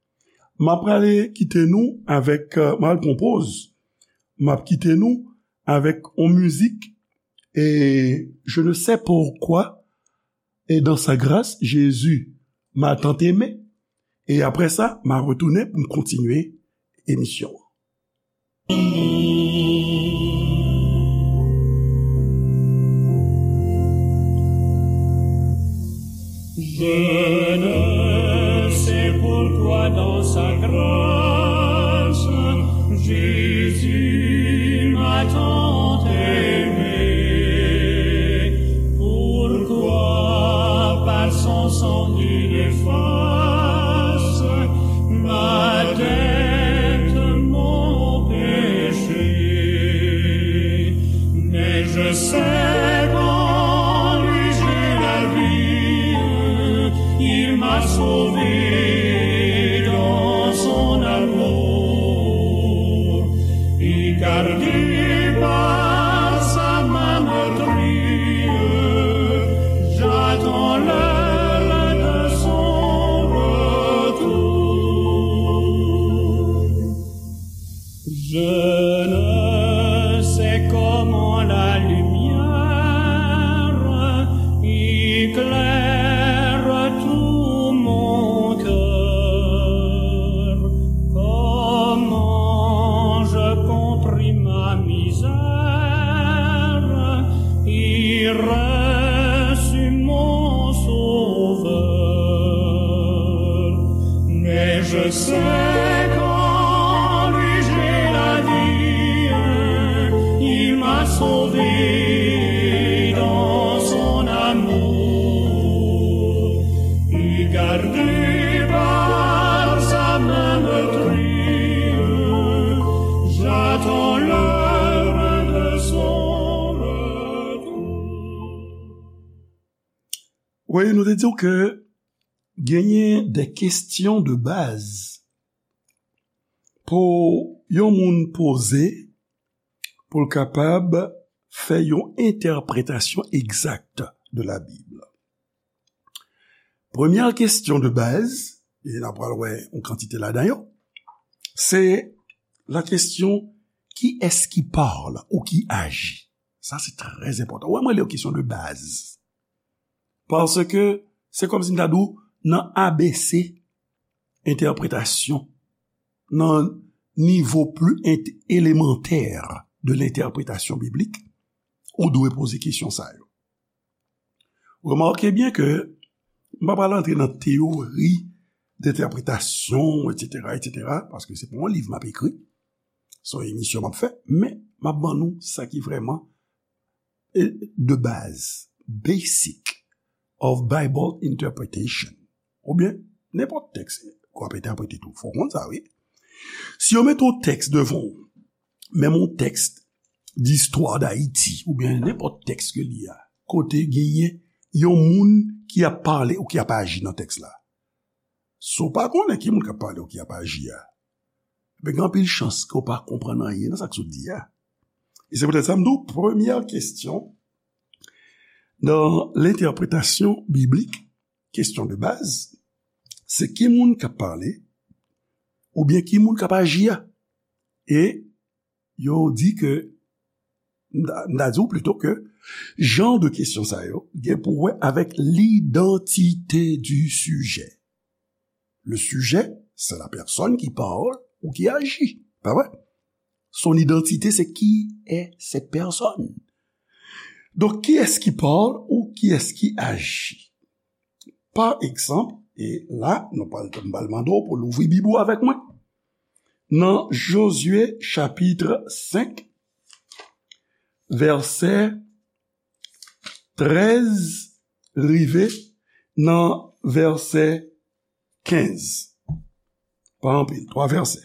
M ap prale kite nou avèk, euh, m al pran poz, m ap kite nou avèk yon mizik e Je ne sais pourquoi Et dans sa grâce, Jésus m'a tant aimé. E apre sa, m a retounen pou m kontinye emisyon an. Je ne sais pourquoi dans sa grâce, Jésus m'a tant aimé. Pourquoi par son sang il efface ma dette, mon péché. Mais je sais qu'en lui j'ai la vie, il m'a sauvé dans son amour. Et gardé par sa main meurtrie, j'attends l'heure de son retour. Je ne sais comment la lumière éclaire tout mon cœur, comment je compris ma misère et reçus mon Sauveur. Mais je sais qu'en lui j'ai la vie, il m'a sauvé dans son amour. Et gardé par sa main meurtrie, j'attends l'heure de son retour. Wi, nou te di w ke genyen de kesyon de baz pou yon moun poze pou l kapab fè yon entèpretasyon egzak de la Bib. Premyè kesyon de baz, e n ap pral wè yon kantite ladan yo, se la kesyon, qui est-ce qui parle ou qui agit? Sa se trè enpòtan. Wè, mwen li yon kesyon de baz. Paske se kòmsi m ta di w nan A B C entèpretasyon, nan nivo pli ent-, elemantè de lentèpretasyon biblik, ou dwe poze kesyon sa yo. Remake byen ke m pa pral antre nan teyori dentèpretasyon, etsetera, etsetera, paske se pa yon liv m ap ekri, se yon emisyon m ap fè, men m ap ban nou sa ki vrèman, e, de baz, basic of Bible interpretation. Oubyen, nenpòt tèks ke w ap entèprete tou. Fò w konn sa, wi. Si yo mete yon tèks devan w, menm yon tèks d'histoire d'Haïti, oubyen nenpòt tèks ke li a, kote genyen yon moun ki ap pale ou ki ap aji nan tèks la. Si w pa konnen ki moun k ap pale ou ki ap aji a, ben, gen anpil chans ke w pa konprann anyen nan sa k sot di a. E se poutèt sa m di w, premyè kesyon nan lentèpretasyon biblik, kesyon de baz, se ki moun k ap pale, oubyen ki moun k ap aji a. E yo di ke, m ta, m ta di w plito ke jan de kesyon sa yo gen pou wè avèk l'identité du sujet. Le sujet, c'est la personne qui parle ou qui agit. Pa vre? Son identité, c'est qui est cette personne. Donk, qui est-ce qui parle ou qui est-ce qui agit? Pa egzanp, e la, nou pral, m pral mande w pou louvri Bib ou avèk mwen. Nan Jozye chapit senk, vèsè trèz rive nan vèsè kenz. Pa anpil, twa vèsè.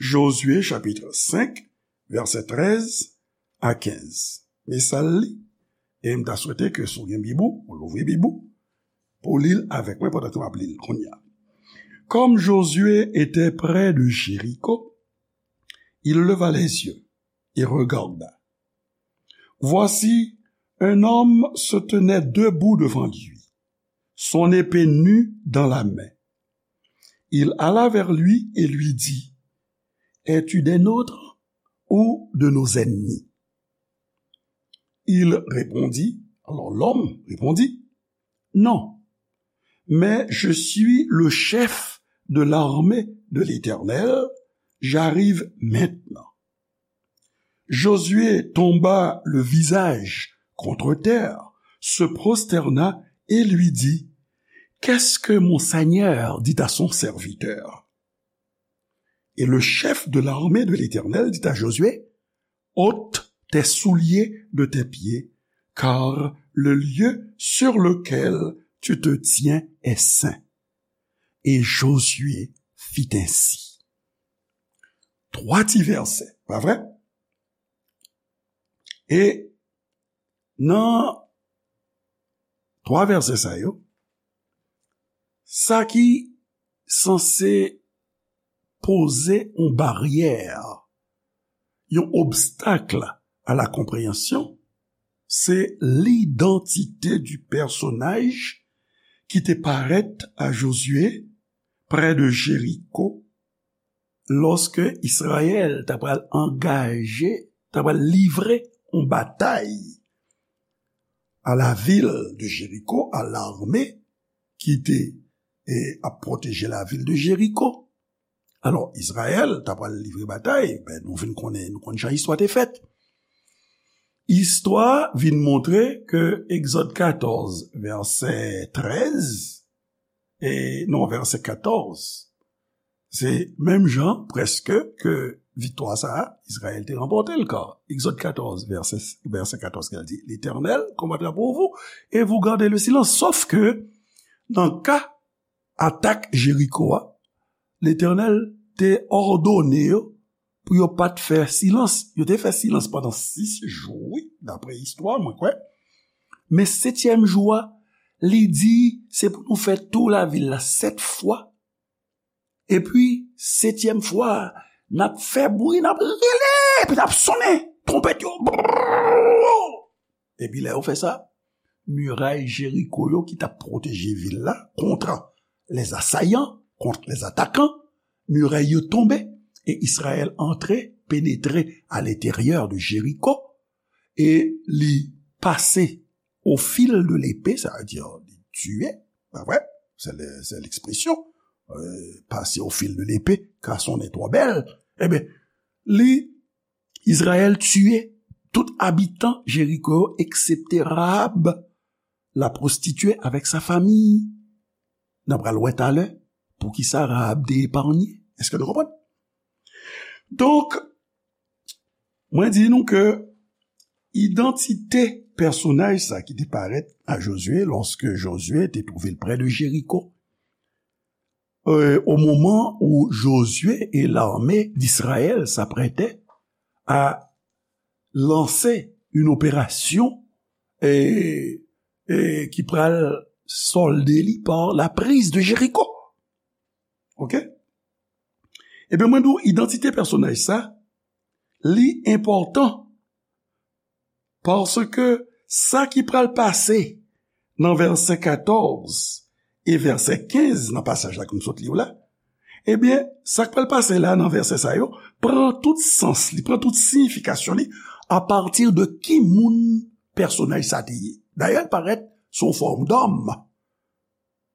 Jozye chapit senk, vèsè trèz a kenz. Men sa l li, e m ta swete ke si w gen Bib ou, ou louvri Bib ou, pou w li l avèk mwen pandan ke m ap li l kounye a. Comme Josué était près de Jéricho, il leva les yeux et regarda. Voici, un homme se tenait debout devant lui, son épée nue dans la main. Il alla vers lui et lui dit, es-tu des nôtres ou de nos ennemis? Il répondit, alors l'homme répondit, Non, mais je suis le chef de l'armée de l'Éternel, j'arrive maintenant. Josué tomba le visage contre terre, se prosterna et lui dit, Qu'est-ce que mon Seigneur dit à son serviteur? Et le chef de l'armée de l'Éternel dit à Josué, Ôte tes souliers de tes pieds, car le lieu sur lequel tu te tiens est saint. Et Josué fit ainsi. Twa ti vèsè, pa vre? E nan twa vèsè sa yo, sa ki sanse poze yon baryè, yon obstak a la konpreyansyon, se lidantite di pèsonaj ki te parèt a Josué prè de Jeriko lòske Izrayèl ta pral angaje, ta pral livre yon batay a la vil de Jeriko, a lame ki te e, ap pwoteje la vil de Jeriko. Alò, Izrayèl ta pral livre batay, ben, nou vin konnen, nou konn jan istwa te fèt. Istwa vin montre ke Egzòd katòz, vèsè trèz, e non, vèsè katòz, se menm jan, prèske, ke viktwa sa a, Izrayèl te ranpòte l, ka Egzòd katòz, vèsè, vèsè katòz, ki di, L'Éternel combattra pour vous, et vous gardez le silence. Sòf ke, nan ka atak Jeriko a, Letènèl te òdone yo pou yo pa t fè silans. Yo te fè silans pandan sis jou, wi, dapre istwa, mwen kwè. Men setyèm jou a, li di, se pou nou fè tou lavil la sèt fwa. Epi, setyèm fwa a, n ap fè bri, n ap rele, epi n ap sonnen twonpèt yo. Epi lè yo fè sa, miray Jeriko yo ki t ap pwoteje vil la kont les assaillants, kont les attaquants, miray yo tonbe, e Izrayèl antre, penetre à l'intérieur de Jéricho, e li pase au fil de l'épée, sa vle di li tiye, pa vre? Se le, se lekspresyon, euh, pase au fil de l'épée, ka sonnen twò bèl. Ebyen, li Izrayèl tiye tout abitan Jeriko yo, eksepte Rahab, la prostituée, avec sa famille. N a pral wè talè poukisa Rahab te epanye. Èske nou konprann? Donk, mwen di nou ke idantite pèsonaj sa ki te parèt a Josué lòske Josué te twouve l prè de Jeriko, euh, au moment où Josué et l'armée d'Israël s'apprêtaient à lancer une opération, euh, euh, ki pral solde li par la prise de Jéricho. Ok? Ebyen, mwen di w, idantite pèsonaj sa, li enpòtan. Paske sa ki pral pase nan vèsè katòz e vèsè kenz nan pasaj la ke m sot li w la, ebyen, sa k pral pase la nan vèsè sa yo pran tout sans li, pran tout siyifikasyon li apati de ki moun pèsonaj sa te ye. Dayè, l parèt sou fòm dòm.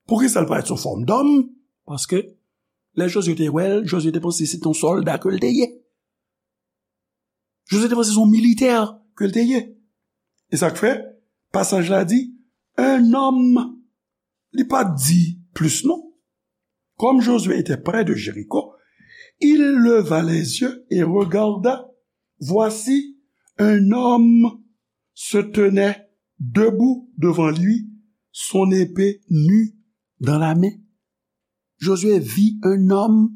Poukisa l parèt sou fòm dòm? Paske lè Josué te wè l, Josué te panse se t on sòlda ke l te ye. Josué te panse se yon militè ke l te ye. E sa k fè, pasaj la di, un homme, li pa t di plis non. Comme Josué était près de Jéricho, il leva les yeux et regarda. Voici, un homme se tenait debout devant lui, son épée nue dans la main. Josué vit un homme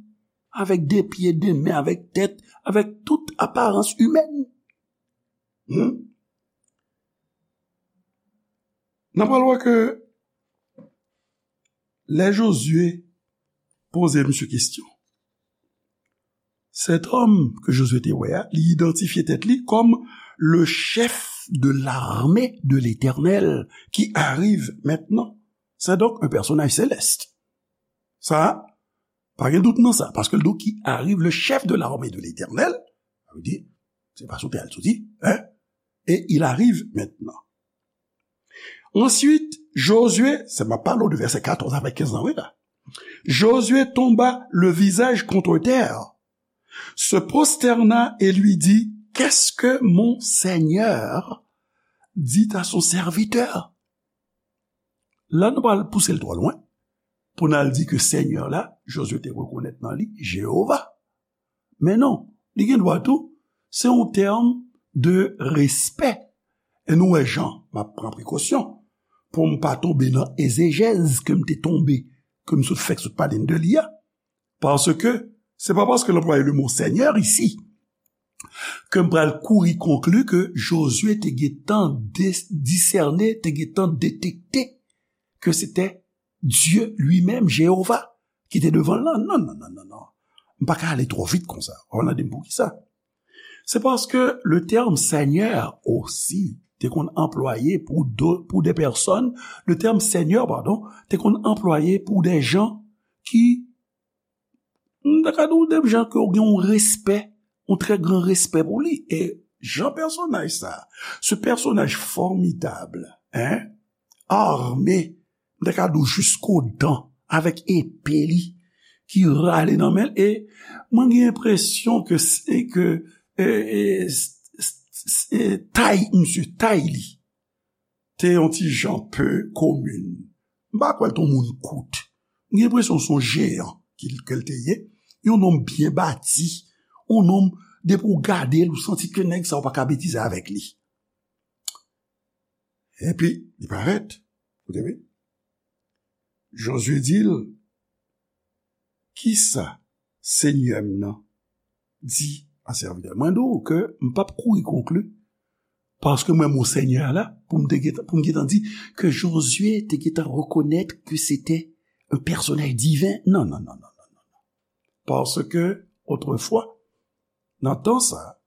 avec des pieds, des mains, avec tête, avec toute apparence humaine. Hmm? N ap pral wè ke lè Josué poze misye kesyon, cet homme ke Josué te wè a, li idantifye tèt li kòm le chef de l'armée de l'Éternel qui arrive maintenant. C'est donc un personnage céleste. Sa, pa gen dout nan sa, paske l di w qui arrive, le chef de l'armée de l'Éternel, sa vle di, se pa sou tè a l soti, hein? Et il arrive maintenant. Ensuite, Josué, se m ap pale w de vèsè katòz avèk kenz lan, wi la. Josué tomba le visage contre terre, se prosterna et lui dit, qu'est-ce que mon Seigneur dit à son serviteur? La, nou pral pouse l twò lwen pou n al di ke Senyè la, Josué te rekonèt nan li Jewova. Men non, li gen dwa tou, se yon tèm de respè. E nou wè jan m ap pran prekosyon pou m pa tonbe nan ezejèz ke m te tonbe, ke m sot fèk sot pale n de li a. Paske se pa paske l anplwaye le mo Seigneur isi ke m pral kouri konkli ke Josué te gentan de- disène, te gentan detekte ke se te Dye li menm, Jewova, ki te devan l lan. Non, non, non, non, non. M pa ka ale twò vit konsa. W ap mande m poukisa. Se paske le tèm Senyè osi te konn anplwaye pou de, pou de pèsòn, le tèm Senyè, padon, te konn anplwaye pou de jan ki, m ta ka di w de jan ke w gen yon respè, yon trè gran respè pou li. E jan pèsonaj sa, ce personnage formidable, hein, armé, m ta ka di w jusqu'aux dents, avèk epe li ki rale nan men l, e mwen gen enpresyon ke, se ke, e, e, s- s- s- e, tay, misye, tay li te yon ti jan pe komin. M pa kwè l te yon moun kout. M gen enpresyon se yon jeyan ki, ke l te ye. Yon nonm byen bati. Yon nonm, depi w gade l, ou santi ke nèg sa, ou pa ka betize avèk li. Epi, li parèt. Koute byen. Josué di l, kisa Senyè m nan di a sèvitè l? Mwen di w ke m p ap kouri konkli, paske mwen, mo Senyè la, pou m te gentan, pou m gentan di ke Josué te gentan rekonèt ke se te un personnage divin. Non, non, non, non, non, non. Paske, otrefwa, nan tan sa,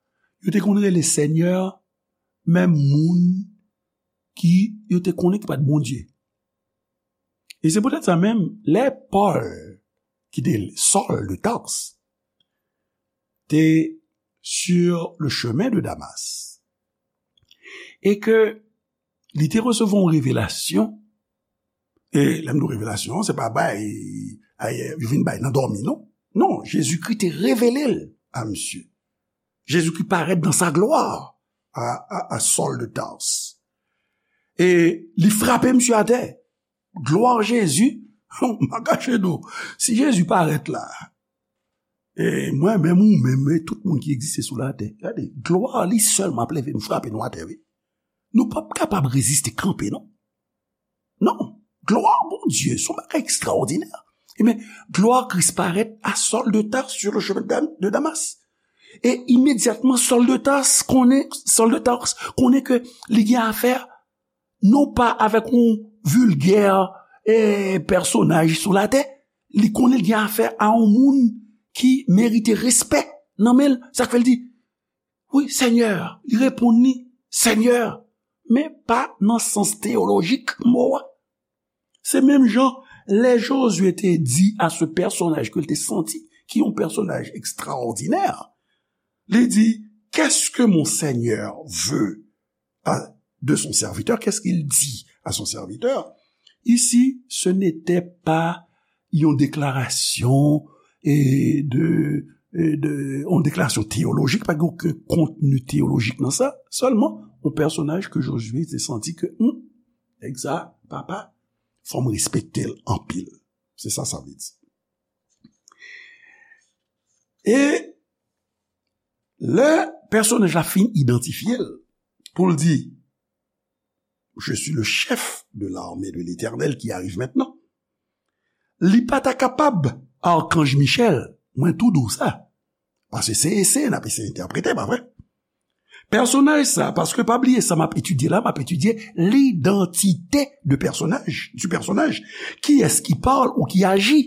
yo te konn rele Senyè menm moun ki yo te konnen ki pa t Bondye. E se poutèt sa menm, lè Pòl, ki te Sòl de Tars, te sur le chemin de Damas, e ke li te resevwa yon revelasyon, e lè m di w revelasyon, se pa bay, ay, yo vin bay nan dòmi, non. Non, Jezikri te revele l a misye. Jezikri parèt dans sa gloire à, à, à Saul de Tarse. E li frape misye atè. Glwa Jezi, m pa kache nou. Si Jezi parèt la, e mwen menm, ou menm, e tout moun ki egziste sou latè, gade, glwa li sèlman ap leve nou, frape nou atè, wi. Nou p ap kapab reziste kanpe, non. Non. Glwa Bondye, se yon bagay ekstraòdinè. Ebyen, glwa Kris parèt a Sòl de Tars sur le chemin de Dam- de Damas. E imedyatman, Sòl de Tars konnen, Sòl de Tars konnen ke li gen afè non pa avèk yon vilgè, e, pèsonaj sou latè, li konnen li gen afè a yon moun ki merite respè nan men l. Sa k fè l di, wi, Senyè, li reponn li, Senyè, men pa nan sans teyolojik mo a. Se menm jan, lè Jozye te di a se pèsonaj ke l te santi, ki yon pèsonaj ekstraòdinè, li di, qu'est-ce que mon Seigneur veut à, de son serviteur, qu'est-ce qu'il dit à son serviteur? Ici, ce n'était pas yon deklarasyon, e, de, e, de, yon deklarasyon teyolojik, pa gen okenn kontni teyolojik nan sa, sèlman yon pèsonaj ke Jozye te santi ke, hmm, nèg sa, papa, fò m respekte l anpil. Se sa sa vle di. E lè pèsonaj la fin idantifye l, pou l di, je suis le chef de l'armée de l'Éternel qui arrive maintenant. Li pa ta kapab, Arkanj Michèl, mwen tou di w sa. Paske se eseye n ap eseye entèprete, pa vre? Pèsonaj sa, paske pa bliye sa m ap etidye la, m ap etidye l'identité de personnage, du personnage. Kiyès ki pale ou ki aji?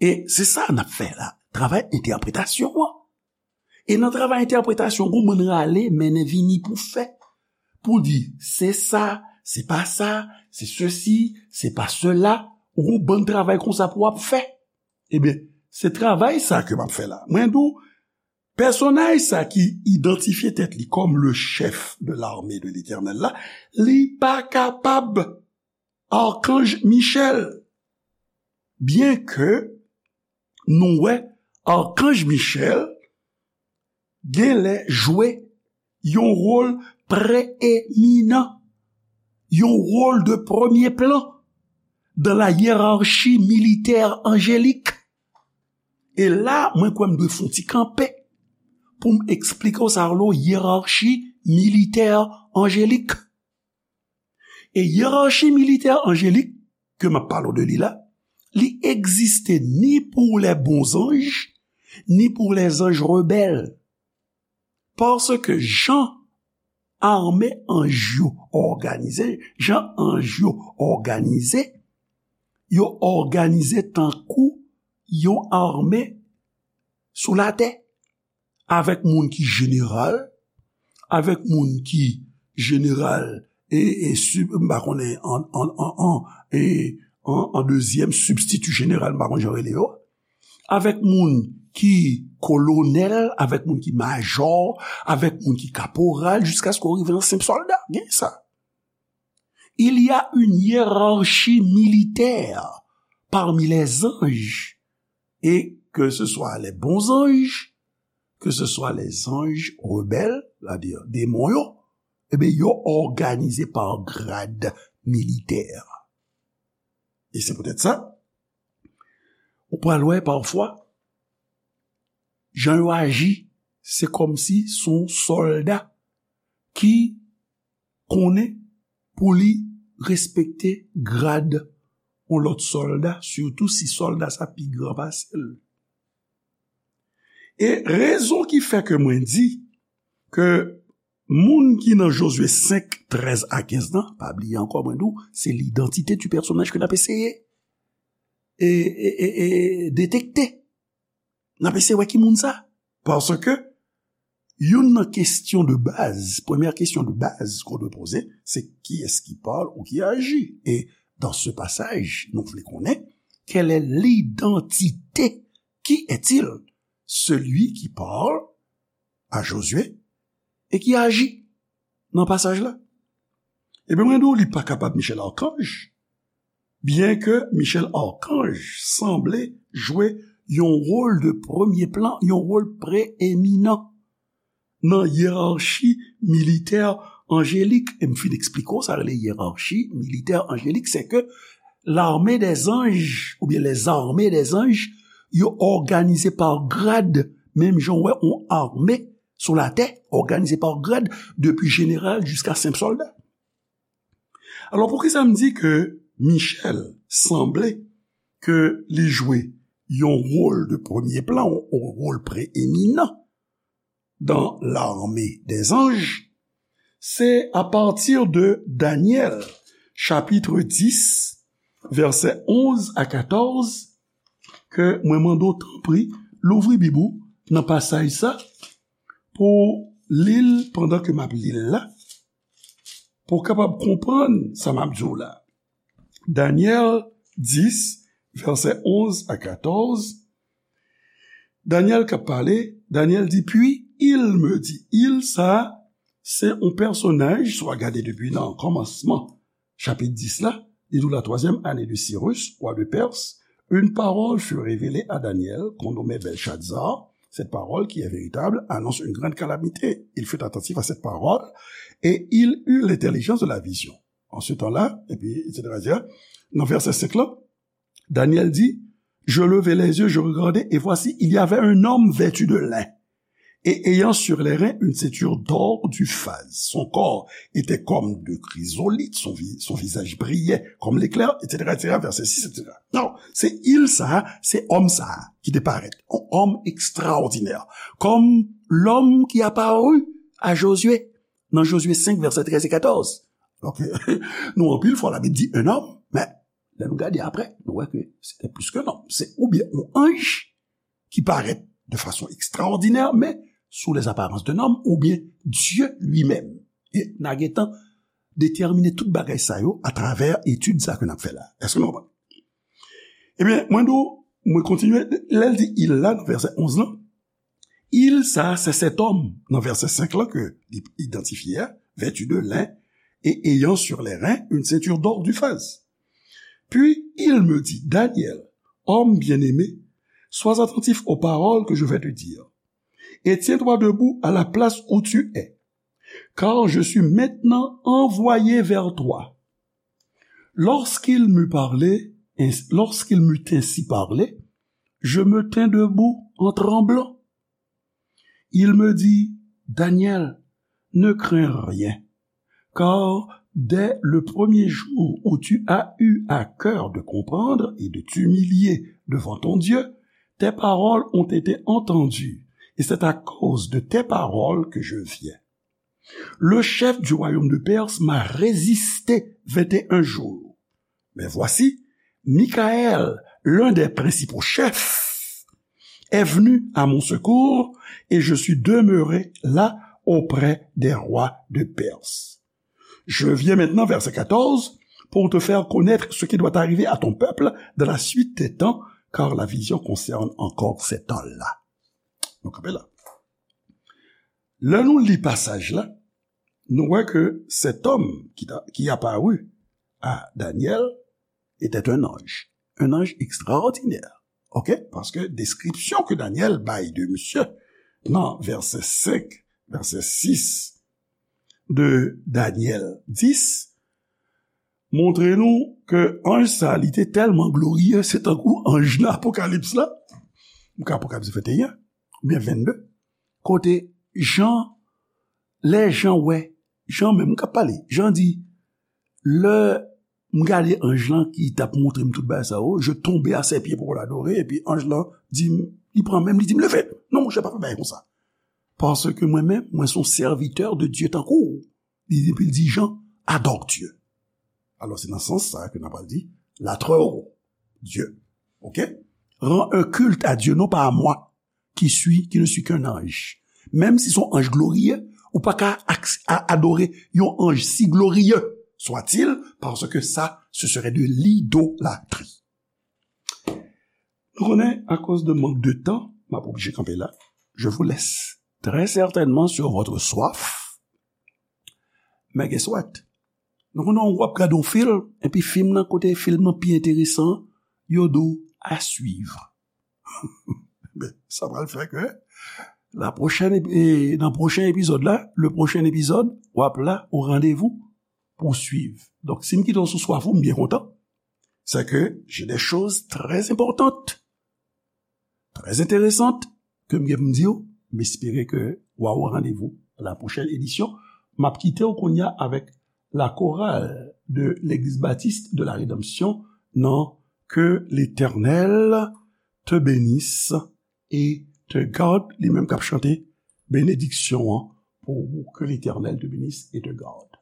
E se sa n ap fè la, travay entèpretasyon an. E nan travay entèpretasyon, gon bann rale, mennen vini pou fè. Pou di, se sa, se pa sa, se sesi, se pa sela, ou gon bann travay konsa pou w ap fè. Ebyen, se travay sa ke m ap fè la. Mwen di w, Pèsonaj sa ki idantifye tèt li kòm le chèf de l'armée de l'Éternel la, li pa kapab Arkanj Michèl. Byenke nou wè Arkanj Michèl genlè jwe yon wòl preeminan, yon wòl de premye plan dans la hiérarchie militaire angélique. E la, mwen kwè m dwe fè yon ti kanpe pou m eksplike w sa rele hiérarchie militaire angélique. E hiérarchie militaire angélique ke m ap pale w de li la, li egziste ni pour les bons anges, ni pour les anges rebelles. Paske jan ame anj yo òganize, jan anj yo òganize, yo òganize tankou yon ame sou latè, avèk moun ki jeneral, avèk moun ki jeneral e, e sib-, m pa konnen an, an, an, an, e, an, an dezyèm sibstiti jeneral, m pa konn jan yo rele yo, avèk moun ki kolonèl, avèk moun ki majò, avèk moun ki kaporal, jiskaske w rive nan senp sòlda. Gen sa. Il y a une hiérarchie militaire parmi les anges, et que ce soit les bons anges, que ce soit les anges rebelles, c'est-à-dire démons yo, ebyen, yo òganize pa grad militè. E se poutèt sa, ou pral wè pafwa, jan yo aji, se kòmsi se yon sòlda ki konnen pou li respekte grad yon lòt sòlda, sitou si sòlda sa pi gran pase l. E rezon ki fè ke mwen di ke moun ki nan Jozye senk, trèz a kenz lan, pa bliye ankò, mwen di w, se l'identité du personnage ke n ap eseye e, e, e, e detekte. N ap eseye wè ki moun sa. Paske youn nan kesyon de baz, premyè kesyon de baz qu'on doit poser, c'est qui est-ce qui parle ou qui agit? Et dans ce passage, nou vle konnen, quelle est l'identité? Qui est-il? Celui qui parle à Josué et qui agit nan pasaj la. Ebyen, mwen di w, li pa kapab Michèl Arkanj, byenke Michèl Arkanj sanble jwe yon wòl de premye plan, yon wòl preeminan nan yerachi militè anjelik. E m fin eksplike w sa rele yerachi militè anjelik, se ke l'armée des anges, oubyen les armées des anges, yo òganize pa grad, menm jan w wè yon ame sou latè, òganize pa grad, depi jeneral jiska senp sòlda. Alò, poukisa m di ke Michèl sanble ke li jwe yon wòl de premye plan, yon wòl preeminan dans l'armée des anges? Se apati de Danyèl, chapit dis, vèsè onz a katòz, ke mwen mande w, tanpri, louvri Bib ou nan pasaj sa, pou w li l pandan ke m ap li l la, pou w kapab konprann sa m ap di w la. Danyèl dis, vèsè onz a katòz. Danyèl k ap pale, Danyèl di, Puis il me dit, il sa, se yon pèsonaj, si w a gade depi nan kòmansman chapit dis la, li di w, la troisième année de Cyrus, roi de Perse, une parole fut révélée à Daniel, qu'on nommait Belshazzar. Cette parole qui est véritable annonce une grande calamité. Il fut attentif à cette parole et il eut l'intelligence de la vision. En ce temps-là, epi, et cetera, et cetera. Nan vèsè senk lan, Daniel dit, Je levai les yeux, je regardai, et voici, il y avait un homme vêtu de lin, et ayant sur les reins une ceinture d'or d'Uphaz. Son corps était comme de chrysolithe, son vi-, son visage brillait comme l'éclair, et cetera, et cetera, verset six, et cetera. Non, se il sa, se òm sa ki te parèt, yon òm ekstraòdinè, comme l'homme qui apparut à Josué, nan Jozye senk, vèsè trèz e katòz. Donk, nou anpil fwa Labib di un homme, men lè nou gade apre, nou wè ke se te plis ke yon nonm. Se oubyen yon anj ki parèt de fason ekstraòdinè, men sous les apparences d'un homme, oubyen Dieu lui-même. E n a gentan detèmine tout bagay sa yo atravè etid sa ke n ap fè la. Èske nou konprann? Ebyen, mwen di w, mwen kontinye, lè l di il la, nan vèsè onz lan, Il, sa, se sèt òm nan vèsè senk lan ke li idantifye a, vêtu de lin et ayant sur les reins une ceinture d'or d'Uphaz. Puis il me dit, Daniel, homme bien-aimé, sois attentif aux paroles que je vais te dire, et tiens-toi debout à la place où tu es, car je suis maintenant envoyé vers toi. Lorsqu'il m'eut parlé, ins- lorsqu'il m'eut ainsi parlé, je me tins debout en tremblant. Il me dit, Daniel, ne crains rien, car dès le premier jour où tu as eu à cœur de comprendre et de t'humilier devant ton Dieu, tes paroles ont été entendues, et c'est à cause de tes paroles que je viens. Le chef du royaume de Perse m'a résisté vingt et un jours. Mais voici, Michaël, l'un des principaux chefs, est venu à mon secours et je suis demeuré là auprès des rois de Perse. Je viens maintenant, verset quatorze, pour te faire connaître ce qui doit arriver à ton peuple dans la suite des temps, car la vision concerne encore ces temps-là. Nou kanpe la. Lè nou li pasaj la, nou wè ke cet homme qui, qui apparut à Daniel était un ange. Un ange extraordinaire. OK? Paske deskripsyon ke Daniel bay de misye nan vèsè senk, vèsè sis de Daniel dis, montre nou ke anj sa, li te tèlman gloriye, se tankou anj nan Apokalips la, ou ka Apokalips venteyen, oubyen vennde, kote Jan, lè Jan wè, Jan menm k ap pale, Jan di, lè m gade anj lan ki t ap montre m tout bagay sa yo, je tombe à ses pieds pour l'adorer, epi anj lan di m, li pran men m, li di m, leve! Non, monchè, pa fè bagay konsa. Paske mwen menm, mwen se yon sèvitè de Dye tankou w. Li, epi l di Jan, adore Dieu. Alò, se nan sans sa ke n ap pral di, latrewo Dieu. OK? Rends un culte à Dieu, non pas à moi, qui suis, qui ne suis qu'un ange. Menm si se yon anj gloriye, ou pa ka ak- a- adore yon anj si gloriye soit-il, paske sa, ce serait de l'idolâtrie. Nou konnen, akoz de mank de tan, m ap oblije kanpe la. Je vous laisse très certainement sur votre soif. Men guess what? Nou konnen w ap gade yon fim, epi fim nan, kote fim nan pi enteresan, yo di w à suivre. Ben, sa pral fè ke la pwochèn epi- e, nan pwochen epizòd la, le prochain épisode, w ap la au rendez-vous pou swiv. Donk, si m kite w sou swaf ou, m byen kontan. C'est que j'ai des choses très importantes, très intéressantes ke m gen pou m di w. M espere ke w a au rendez-vous à la prochaine édition. M ap kite w kounye a avèk la chorale de l'Église Baptiste de la Rédemption nan Que l'Éternel te bénisse et te garde, li menm k ap chante benediksyon an pou ou, Que l'Éternel te bénisse et te garde.